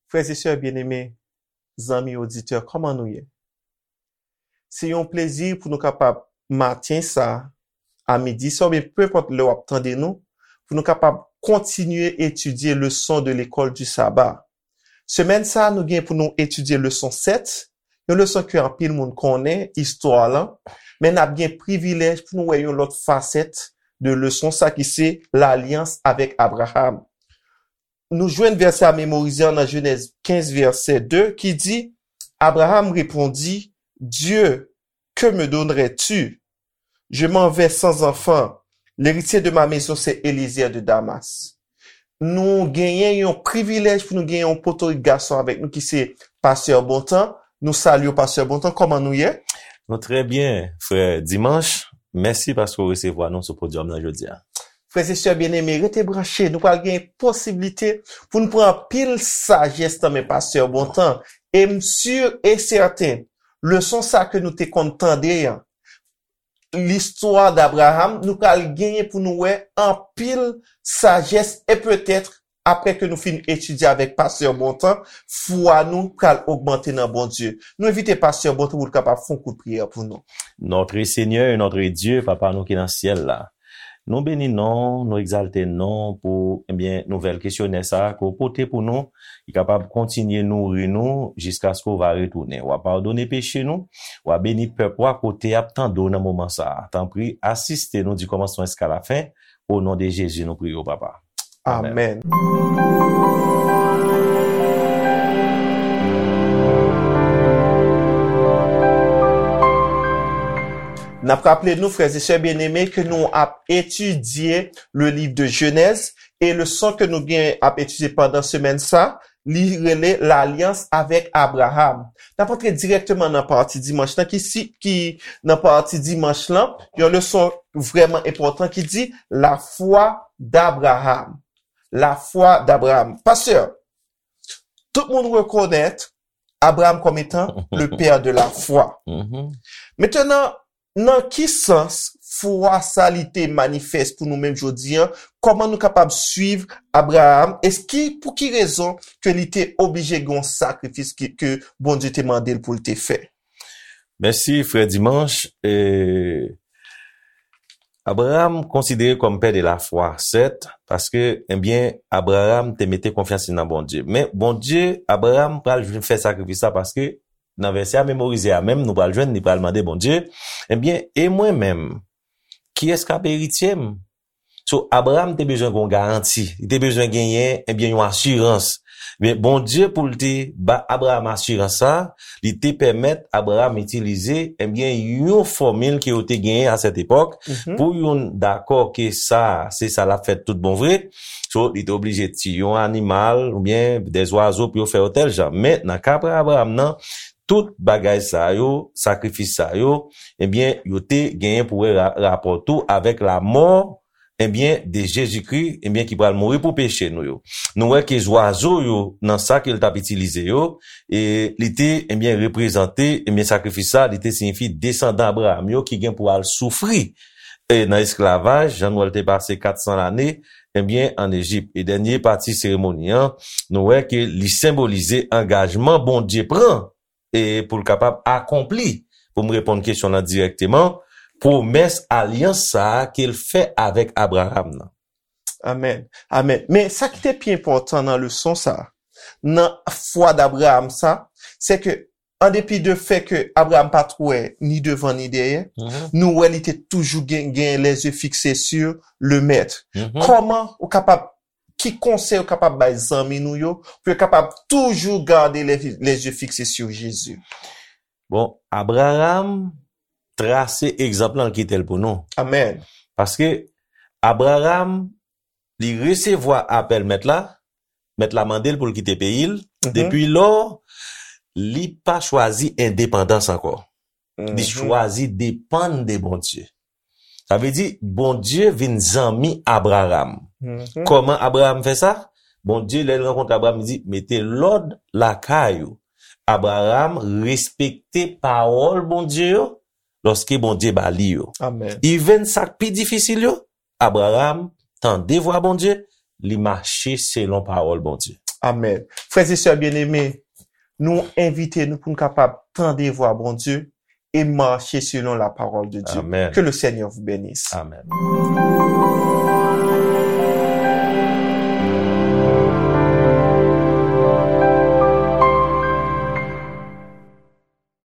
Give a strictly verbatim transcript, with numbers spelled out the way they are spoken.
Frè e sè byeneme, zanmi oditè, kòman nou ye? Se yon plezi pou nou kapab maten sa, a midi sa, oubyen penpòt lè w ap tande nou, pou nou kapab kontinye etidye leson de lekòl di saba. Semèn sa, nou gen pou nou etidye leson sèt, yon leson ke anpil moun konnen, istwa lan, men n ap gen privilèj pou nou wè yon lòt fasèt de leson sa ki se lalyans avèk Abraram. Nou jwenn vèsè a memorize an nan Jenèz kenz, vèsè de, ki di, Abraham répondit, Dieu, que me donnerais-tu? Je m'en vais sans enfant. L'héritier de ma maison, c'est Eliezer de Damas. Nou genyen yon privilèj pou nou genyen yon potorik gason avèk nou ki se Pastè Bontan. Nou salye w, Pastè Bontan. Kòman nou ye? Nou trè byen, frè Dimanche. Mèsi paske w resevwa nou sou podyòm nan jodi a. Frè e sè byeneme, rete branche. Nou pral gen posiblite pou nou pran anpil sajès nan men Pastè Bontan. E m si e sèten, leson sa ke nou te konn tande an, listwa d'Abraham, nou pral genyen pou nou wè anpil sajès e petèt, apre ke nou fin etidye avèk Pastè Bontan, fwa nou pral ogmante nan Bondye. Nou envite Pastè Bontan pou l kapab fè yon kout priyè pou nou. Notre Seigneur et notre Dieu, Papa nou ki nan syèl la, nou beni non, nou egzalte non pou, ebyen, nouvèl kesyonè sa a ke w pote pou nou, ki kapab kontinye nouri nou jiskaske w va retounen. W a padone peche nou, w a beni pèp ou a kote y ap tande w nan moman sa a. Tanpri, asiste nou di kòmansman jiska lafen, o non de Jezi nou priye w, Papa. Amèn. Amèn. N ap raple nou, frè e sè byeneme, ke nou ap etidye le livre de Genèse, e leson ke nou gen ap etidye pandan semèn sa, li rele lalyans avèk Abraham. N ap antre dirèkteman nan pati dimanch lan, ki si, ki nan pati dimanch lan, yon leson vrèman enpòtan ki di, la foi d'Abraham. La foi d'Abraham. Pastè, tout moun rekonèt Abraham kòm etan le père de la foi. Mhm. Mentnan, nan ki sans fwa sa li te manifès pou nou menm jodi an? Kòman nou kapab swiv Abraham? Eski, pou ki rezon ke li te oblije gen yon sakrifis ke, ke Bondye te mande l pou l te fè? Mèsi, frè Dimanche. E, Abraham konsidere kòm pè de lafwa, sèt, paske, ebyen, Abraham te mete konfyans li nan Bondye. Men Bondye, Abraham pral vin fè sakrifis la paske nan vèsè a memorize a menm, nou pral jwenn, li pral mande Bondye, ebyen, e mwen menm, kiyès k ap eritye m? So, Abraham te bezwen gen yon garanti, li te bezwen genyen, ebyen, yon asirans. Men Bondye, pou l te ba Abraham asirans sa, li te pèmèt Abraham itilize, ebyen, yon fòmil ke yo te genyen a sèt epòk, mhm, pou youn dakò ke sa, se sa l ap fèt tout bon vre. So, li te oblije tiye yon animal oubyen de zwazo pou yo fè yo tèl jan. Men, nan ka Abraham nan, tout bagay sa yo, sakrifis sa yo, ebyen, yo te genyen pou wè ra-, rapò tou avèk lamò, ebyen, de Jezikri, ebyen, ki pral mouri pou peche nou yo. Nou wè ke zwazo yo, nan sa ke l t ap itilize yo, e li te, ebyen, reprezante, ebyen, sakrifis sa, li te siyifi desandan Abraham yo ki gen pou al soufri, e nan esklavaj, jan nou wè l te pase kat san lane, ebyen, ann Ejip. E dènye pati seremoni an, nou wè ke li senbolize angajman Bondye pran e pou l kapab akonpli, pou m reponn kesyon lan dirèkteman, pwomès alyans sa a ke l fè avèk Abraham nan. Amèn. Amèn. Men sa ki te pi enpòtan nan leson sa a, nan fwa d'Abraham sa, se ke, an depi de fè ke Abraham pa t wè ni devan ni dèyè, mhm, nou wè li te toujou gen, gen les yeux fixés sur le Maître. Mhm. Kòman ou kapab, ki konsèy ou kapab bay zanmi nou yo pou yo kapab toujou gade les, les yeux fixés sur Jésus? Bon, Abraham trase egzanp lan, l kite l pou nou. Amèn. Paske Abraham, li resevwa apèl Mèt la, Mèt la mande l pou l kite peyi l, mhm, depi lò, li pa chwazi endepandans ankò. Li, mhm, chwazi depann de Bondye. Sa vle di, Bondye vin zanmi Abraham. Mhm. Kòman Abraham fè sa? Bondye, lè l rankontre Abraham, li di, mete lòd lakay ou. Abraham respekte pawòl Bondye yo, lòske Bondye ba li yo. Amèn. Even sa k pi difisil yo, Abraham tande vwa Bondye, li mache selon pawòl Bondye. Amen. Frères et sœurs bien-aimés, nou envite nou pou nou kapab tande vwa Bondye e mache selon la parole de Dieu. Amen. Que le Seigneur vous bénisse. Amen.